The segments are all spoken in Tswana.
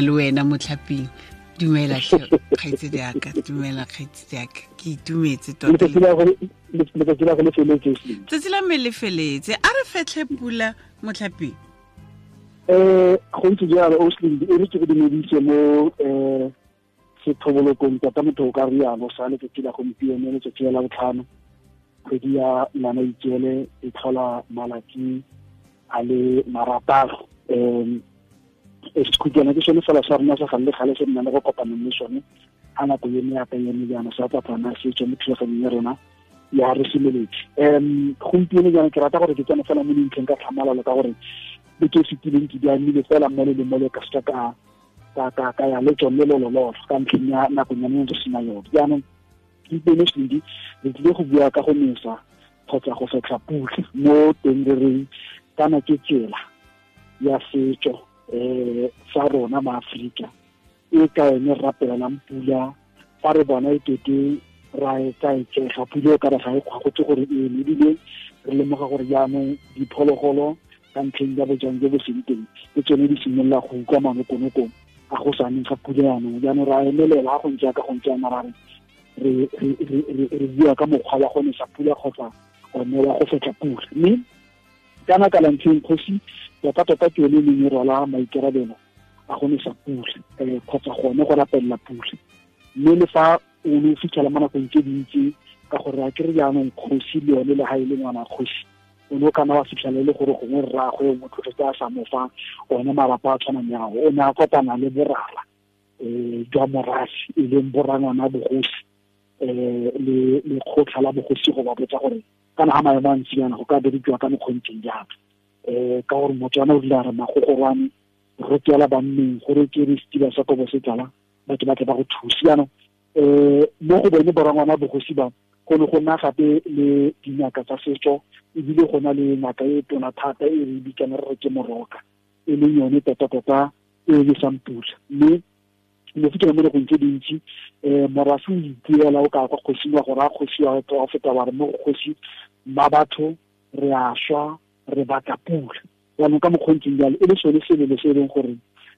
Le wena Motlhaping, dumela kgaitsedi yaka, dumela kgaitsedi yaka, ke itumetse tota. Tsatsi la me le feletse, a re fetlhe pula Motlhaping. Go ntse jalo Oslin, e re ke go dumedise mo sethobolokong tota motho o ka rialo sa letsatsi la gompieno, letsatsi la botlhano, kgwedi ya Ngwanaitseele e tlhola malatsi a le 6. Sekhutwana ke sone fela sa rona sa gale gale se nna le go kopanang le sone ga nako ene ya ka ene jaana sa tsatsana se tswa mo thulaganyong ya rona ya re semeletse. Gompieno jaana ke rata gore ke tsene fela mo dintlheng ka tlhamalalo, ka gore beke e fetileng ke di amile fela mole le mole ka seka ka ya le tsone lolololo ka ntlheng ya nakonyane re sena yone. Jaanong gompieno Slindi re tlile go bua ka go nesa kgotsa go fetlha pula mo teng re reng kana ke tsela ya setso sa rona ma Afrika e ka ene rapelelang pula fa re bona e kete ra e tsaetsega pula e ka re ga e kgwagotse gore e eme, ebile re lemoga gore jaanong diphologolo ka ntlheng ya bojang jo bo seng teng ke tsone di simolola go utlwa manokonokong a go sa neng ga pula jaanong. Jaanong ra emelela go ntse ka go ntse yana ra re bua ka mokgwa wa go nesa pula kgotsa one wa go fetlha pula. Mme kana ka lantlheng kgosi tota ke yone e neng e rwala maikarabelo a go nesa pula kgotsa gone go rapelela pula. Mme le fa o ne o fitlhela mo nakong tse dintsi ka gore a kere jaanong kgosi le yone le ga e le ngwana kgosi, o ne o kana wa fitlhela e le gore gongwe rraagwe o mo tlogetse a sa mo fa one malapa a tshwanang yago, o ne a kopana le borara jwa morafe e leng borangwana bogosi le lekgotlha la bogosi go ba botsa gore kana ga maemo a ntsi yana go ka berekiwa ka mokgontseng jang, ka gore Motswana o rile a re magogorwane rotela banneng gore ke re setiba sa kobo se tlala batho ba tle ba go thuse. Jaanong mo go bone borangwana bogosi ba go ne go nna gape le dingaka tsa setso, ebile go na le ngaka e tona thata e re bitsang re re ke moroka, e leng yone tota-tota e lesang pula. Mme mo fitlhela mo nakong tse dintsi morafe o ipuela o ka kwa kgosing wa gore a kgosi wa feta wa re mo go kgosi mma batho re a swa re batla pula. Jaanong ka mokgontseng jalo e le sone selelo se e leng gore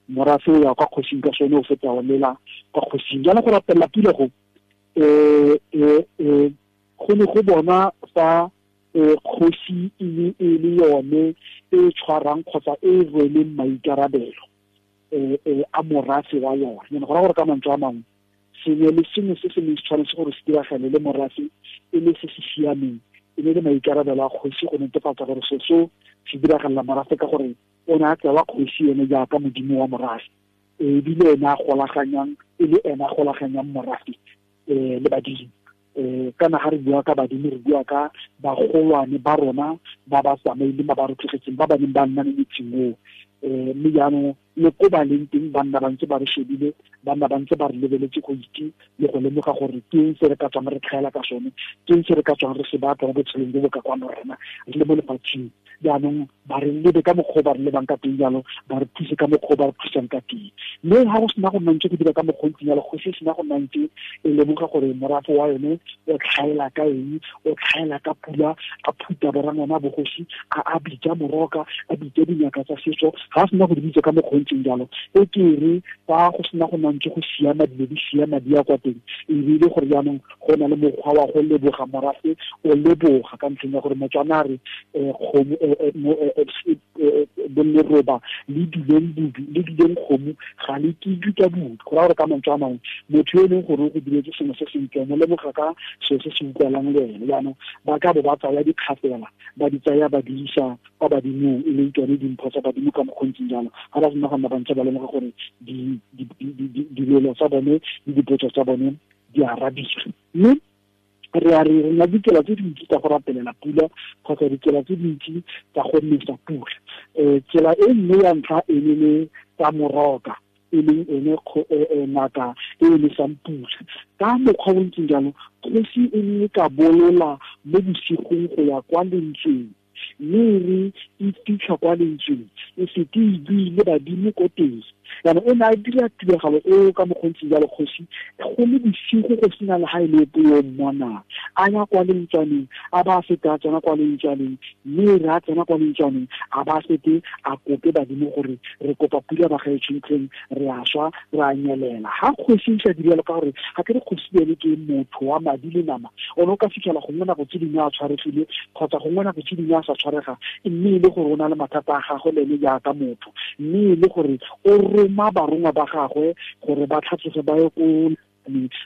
morafe o ya kwa kgosing ka sone o feta o lela kwa kgosing. Jaanong go rapelela pula go go ne go bona fa kgosi e le yone e tshwarang kgotsa e rweleng maikarabelo a morafe wa yone. Go raya gore ka mantswe a mangwe sengwe le sengwe se se neng se tshwanetse gore se diragale le morafe e le se se siameng e ne le maikarabelo a kgosi go netefatsa gore se seo se diragalela morafe, ka gore o ne a tsewa kgosi ene jaaka modimo wa morafe, ebile ene a golaganyang e le ene a golaganyang morafe le badimo. Kana ga re bua ka badimo re bua ka bagolwane ba rona ba ba tsamaileng ba ba re tlogetseng ba ba neng ba nna mo metseng oo. Mme jaanong le ko ba leng teng ba nna ba ntse ba re shebile, ba nna ba ntse ba re lebeletse go itse le go lemoga gore ke eng se re ka tswang re tlhaela ka sone, ke eng se re ka tswang re se batla mo botshelong jo bo ka kwano rena re le mo lefatsheng. Jaanong ba re lebe ka mokgwa o ba re lebang ka teng jalo, ba re thuse ka mokgwa o ba re thusang ka teng. Mme ga go sena go nna ntse go dira ka mokgwa o ntseng jalo, go se sena go nna ntse e lemoga gore morafe wa yone o tlhaela ka eng, o tlhaela ka pula, a phuta borangwana bogosi, a bitsa moroka, a bitsa dingaka tsa setso. Ga a sena go di bitsa ka mokgwa o ntseng jalo, e ke re fa go sena go nna ntse go siama dilo di siama di ya kwa teng, e bile gore jaanong go na le mokgwa wa go leboga morafe, o leboga ka ntlheng ya gore Motswana a re kgomo bolleroba le dileng budu le dileng kgomo ga le kidwe ka budu. Go raya gore ka mantswe a mangwe motho yo e leng gore o go diretse sengwe se sentle mo lemoga ka selo se se utlwalang le ene. Jaanong ba ka bo ba tsaya dikgafela ba di tsaya ba di isa kwa badimong, e leng tsone dimpho tsa badimo ka mokgwa o ntseng jalo. Ga ba sena go nna ba ntse ba lemoga gore dilelo tsa bone le dipotso tsa bone di arabile. Mme re a re na ditsela tse dintsi tsa go rapelela pula kgotsa ditsela tse dintsi tsa go nesa pula. Tsela e nngwe ya ntlha e ne le tsa moroka, e leng ene ngaka e e nesang pula. Ka mokgwa o ntseng jalo, kgosi e ne e ka bolola mo bosigong go ya kwa lentsweng, mme e re e fitlha kwa lentsweng e sete e buile badimo ko teng, Jaanong o ne a dira tiragalo eo ka mokgontsi jalo kgosi go le bosigo go sena le ga e le epe yo mmonang, a ya kwa lentswaneng, a ba a fete a tsena kwa lentswaneng, mme re a tsena kwa lentswaneng a ba fete a kope badimo gore re kopa pula ba gaetsho ntlheng, re a swa, re a nyelela. Ga kgosi e sa dire jalo, ka gore ga ke re kgosi ene ke motho wa madi le nama, o ne o ka fitlhela gongwe nako tse dingwe a tshwaregile kgotsa gongwe nako tse dingwe a sa tshwarega, mme e le gore o na le mathata a gagwe le ene jaaka motho, mme e le gore o roma barongwa ba gagwe gore ba tlhatloge ba ye ko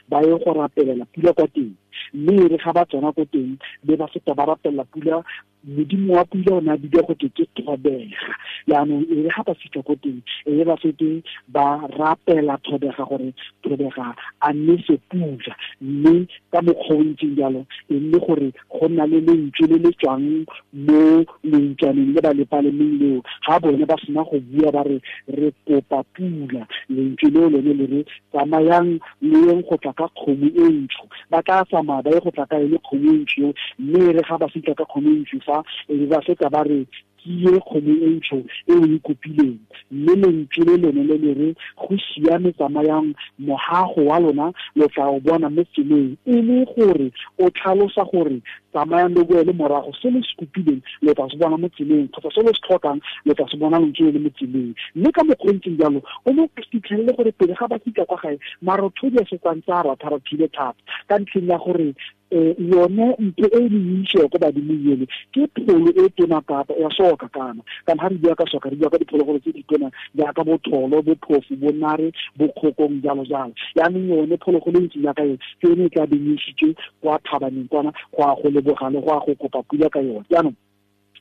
ba ye go rapelela pula kwa teng. Mme e re ga ba tsena ko teng be ba feta ba rapelela pula, modimo wa pula o ne a bidiwa go te ke Thobega. Jaanong e re ga ba fitlha ko teng e re ba fete ba rapela Thobega gore Thobega a nese pula, mme ka mokgwa o ntseng jalo e nne gore go nna le lentswe le le tswang mo lentswaneng le ba le palemeng leo. Ga bone ba sena go bua ba re re kopa pula, lentswe leo lone le re tsamayang le yeng go tla ka kgomo e ntsho. Ba tla tsamaya ba ye go tla ka yone kgomo e ntsho eo, mme e re ga ba fitlha ka kgomo e ntsho fa e be ba fetsa ba re ke ye kgomo e ntsho e o e kopileng, mme lentswe le lone le le re go siame, tsamayang mohago wa lona lo tla o bona mo tseleng. E le gore o tlhalosa gore tsamayang le boele morago, se le se kopileng lo tla se bona mo tseleng, kgotsa se le se tlhokang lo tla se bona lentswe le le mo tseleng. Mme ka mokgwa o ntseng jalo o ne o fitlhelele gore pele ga ba fitlha kwa gae marothodi a setsang tsa ratharathile thata, ka ntlheng ya gore yone ntho e le itse ko badimong ele ke pholo e tona kapa ya soka kana kana ga re bua ka soka re bua ka diphologolo tse di tona jaaka botholo, bophofu, bonare, bokgokong, jalo jalo. Jaanong yone phologolo e ntseng jaaka yone ke yone e tla beng e isitswe kwa thabaneng kwana go a go leboga le go a go kopa pula ka yone. Jaanong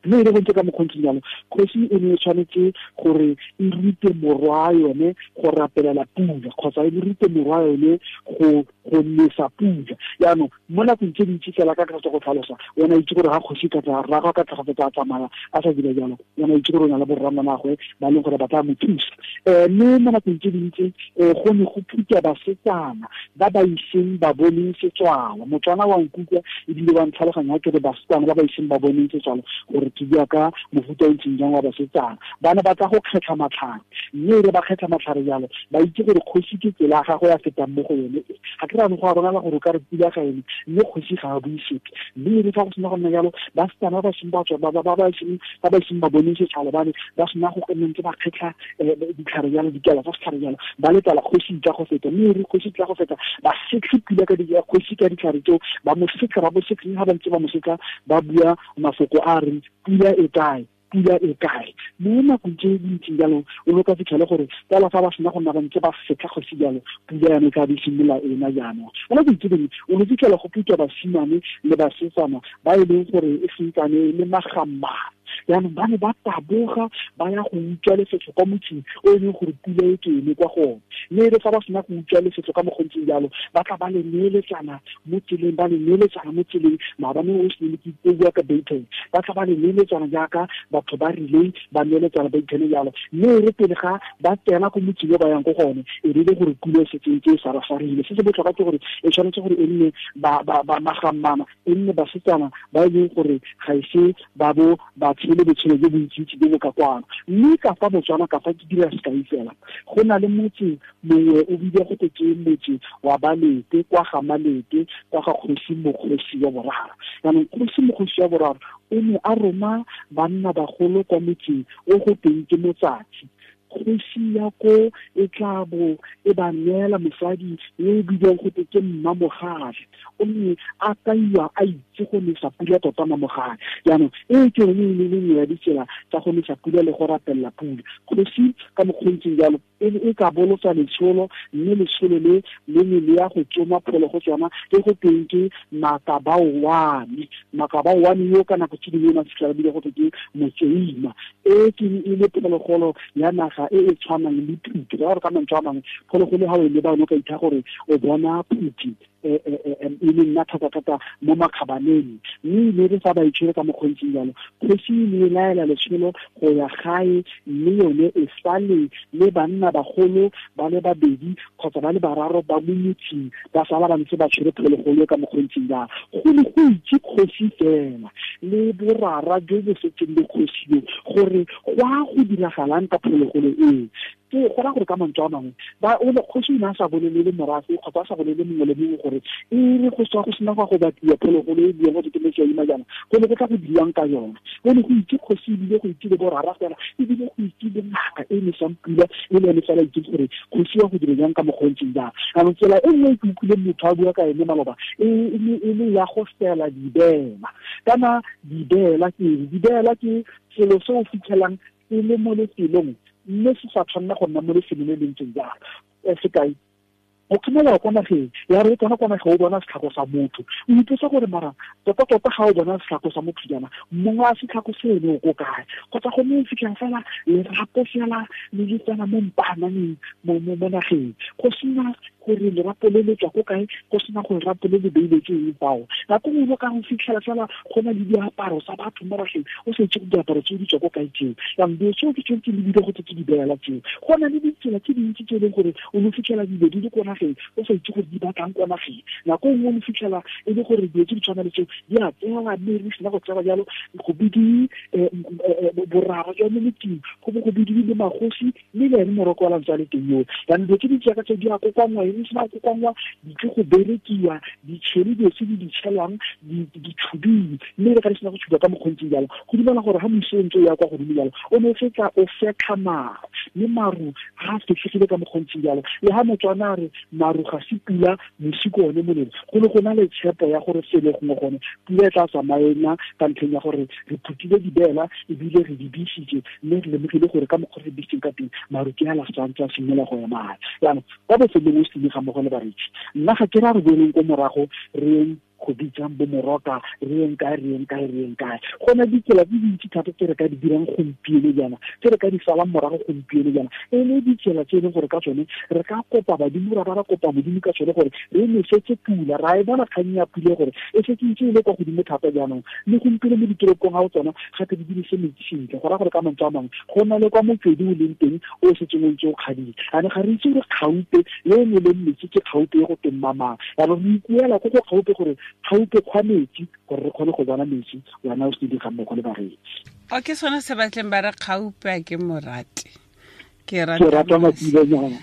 mme e le go ntse ka mokgontsi jalo, kgosi e ne e tshwanetse gore e rute morwa yone go rapelela pula, kgotsa e rute morwa yone go nesa pula. Jaanong mo nakong tse dintsi fela ka tsa go tlhalosa, o ne a itse gore ga kgosi ka tla rraagwe ka tla tsa tsamaya a sa dira jalo, o ne a itse gore o na le borrangwanagwe ba leng gore ba tla mo thusa. Mme mo nakong tse dintsi go ne go phutwa basetsana ba ba iseng ba boneng setswalo. Motswana wa nkutlwa ebile wa ntlhaloganya ke re basetsana ba ba iseng ba boneng setswalo, gore ke bua ka mofuta o ntseng jang wa basetsana. Ba ne ba tla go kgetlha matlhare, mme e re ba kgetlha matlhare jalo ba itse gore kgosi ke tsela ya gagwe ya fetang mo go yone. Ga ke rano go a bonala gore o ka re pula ga ene, mme kgosi ga a bue sepe. Mme e re fa go sena go nna jalo, basetsana ba ba seng ba tswa, ba ba iseng ba bone setšhaba ba ne ba sena go ntse ba kgetlha ditlhare jalo, dikala tsa setlhare jalo, ba letela kgosi tla go feta. Mme e re kgosi tla go feta ba setlhe pula ka kgosi ka ditlhare tseo, ba mo setlha, ba mo setlha, ga ba ntse ba mo setlha ba bua mafoko a reng pula e kae, pula e kae. Mo nakong tse dintseng jalo o ne o ka fitlhele gore fela fa ba sena go nna ba ntse ba setlha kgosi jalo, pula yone e tla be e simolola ena jaanong. Mo nakong tse dingwe o ne o fitlhela go phutwa basimane le basetsana ba e leng gore e sentsane e le magammane. Jaanong ba ne ba taboga ba ya go utswa lefetlho kwa motseng o e leng gore pula e ke eme kwa go one. Mme e re fa ba sena go utswa lefetlho ka mokgontseng jalo, ba tla ba le neeletsana mo tseleng, ba le neeletsana mo tseleng. Maabane o se ne ke bua ka baton, ba tla ba le neeletsana jaaka batho ba rileng ba neeletsana ba ithene jalo. Mme e re pele ga ba tsena ko motseng o ba yang ko go one, e rile gore pula e setse e ntse e sarasarile. Se se botlhokwa ke gore e tshwanetse gore e nne ba magammana, e nne basetsana ba e leng gore ga ise ba bo ba tshele botshelo jo bontsintsi jo bo ka kwano. Mme ka fa Botswana, ka fa ke dira sekai fela, go na le motse mongwe o bidiwa go te ke motse wa Balete, kwa ga Malete, kwa ga kgosi Mokgosi wa boraro. Jaanong kgosi Mokgosi wa boraro o ne a roma banna bagolo kwa motseng o go teng ke Motsatsi. Kgosi ya ko e tla bo e ba neela mosadi yo o bidiwang go te ke Mmamogale, o ne a kaiwa a itse go nesa pula tota Mmamogale. Jaanong e ke yone e le nngwe ya ditsela tsa go nesa pula le go rapelela pula. Kgosi ka mokgontseng jalo e ka bolotsa letsholo, mme letsholo le le ne le ya go tsoma pholo go tsona e go teng ke Makabaoane. Makabaoane yo ka nako tse dingwe o ne a fitlhela bile go te ke Motseima. E ke e le phologolo ya naga e e tshwanang le phuthi. Ka gore ka mantswe a mangwe phologolo ha o e leba o ne o ka itha gore o bona phuthi. E le nna thata-thata mo makgabaneng, mme e ne re fa ba itshwere ka mokgontseng jalo, kgosi e ne e laela letsholo go ya gae, mme yone e sale le banna bagolo ba le babedi kgotsa ba le bararo ba mo motseng, ba sala ba ntse ba tshwere phologolo ka mokgontseng jalo. Go ne go itse kgosi fela le borara jo bo setseng le kgosi yo gore go a go diragalang ka phologolo eo. Ke go raya gore ka mantswe a mangwe ba o le kgosi o ne a sa bolelele morafe kgotsa a sa bolelele mongwe le mongwe gore e re go tswa go sena go batliwa phologolo e buang go ke metsi a ima jaana, go ne go tla go dirwang ka yona. Go ne go itse kgosi ebile go itse le borara fela, ebile go itse le ngaka e nesang pula e le yone fela itse gore kgosi ya go dira jang ka mokgwa o ntseng jang. Jaanong tsela e nngwe e ke utlwileng motho a bua ka ene maloba e le ya go fela dibeela. Kana dibeela ke eng? Dibeela ke selo se o fitlhelang e le mo lefelong mme se sa tshwanela go nna mo lefelong le le ntseng jalo. Sekai, o kgomela kwa nageng ya re tsena kwa nageng o bona setlhako sa motho, o ipotsa gore mara tota-tota ga o bona setlhako sa motho jaana, mongwe a setlhako seno o ko kae? Kgotsa go ne o fitlhela fela lerapo fela le le tsena mo mpaananeng mo nageng, go sena gore lerapo le le tswa ko kae, go sena gore lerapo le le beile ke eng fao. Nako nngwe o ka go fitlhela fela go na le diaparo tsa batho mo nageng, o sa itse gore diaparo tseo di tswa ko kae tseo. Jaanong dilo tseo ke tsone tse di bile go tse di beela tseo. Go na le ditsela tse dintsi tse e leng gore o ne fitlhela dilo di le ko nageng o sa itse gore di batlang ko nageng. Nako nngwe o ne fitlhela e le gore dilo tse di tshwana le tseo di a tsewa, mme re sena go tsewa jalo go bidiwe borara jwa mo motseng, go bo go bidiwe le magosi mme le ene moroko wa lantse a le teng yoo. Jaanong dilo tse di jaaka tse di a kokoanngwa, e sena go kokoanngwa di tle go berekiwa, di tshele dilo tse di di tshelwang di tshubiwe, mme le ga di sena go tshubiwa ka mokgontseng jalo, go dumela gore ga mosi o ntse o ya kwa godimo jalo o ne o fetsa o fetlha maru, mme maru ga a fetlhegile ka mokgontseng jalo. Le ga Motswana a re maru ga se pula, mosi ke one molelo, go ne go na le tshepo ya gore sele gongwe gone pula e tla tsamaena ka ntlheng ya gore re phutile dibeela ebile re di bisitse, mme re lemogile gore ka mokgwa re bisitseng ka teng maru ke a la santse a simolola go ema. Jaanong kwa bofelong o se ga mmogo le bareetsi, nna ga ke ra re boeleng ko morago re yeng go bitsang bo moroka, re yeng kae, re yeng kae, re yeng kae. Go na ditsela tse dintsi thata tse re ka di dirang gompieno jaana, tse re ka di salang morago gompieno jaana, e le ditsela tse e leng gore ka tsone re ka kopa badimo, ra ba ra kopa modimo ka tsone gore re nosetse pula. Ra e bona kgang ya pula gore e setse ntse e le kwa godimo thata jaanong, le gompieno mo ditoropong ga o tsona gape di dirise metsi sentle. Go raya gore ka mantswe a mangwe go na le kwa motswedi o leng teng o setseng o ntse o kgadile, ane ga re itse gore kgaupe le e ne leng metsi ke kgaupe e go teng mamang. Jaanong re ikuela ko go kgaupe gore kgaupe kgwa metsi gore re kgone go bona metsi, wena o se di ga mmogo le bareetsi. O ke sone se batleng ba re kgaupe a ke morate. Ke rata matsilenyana.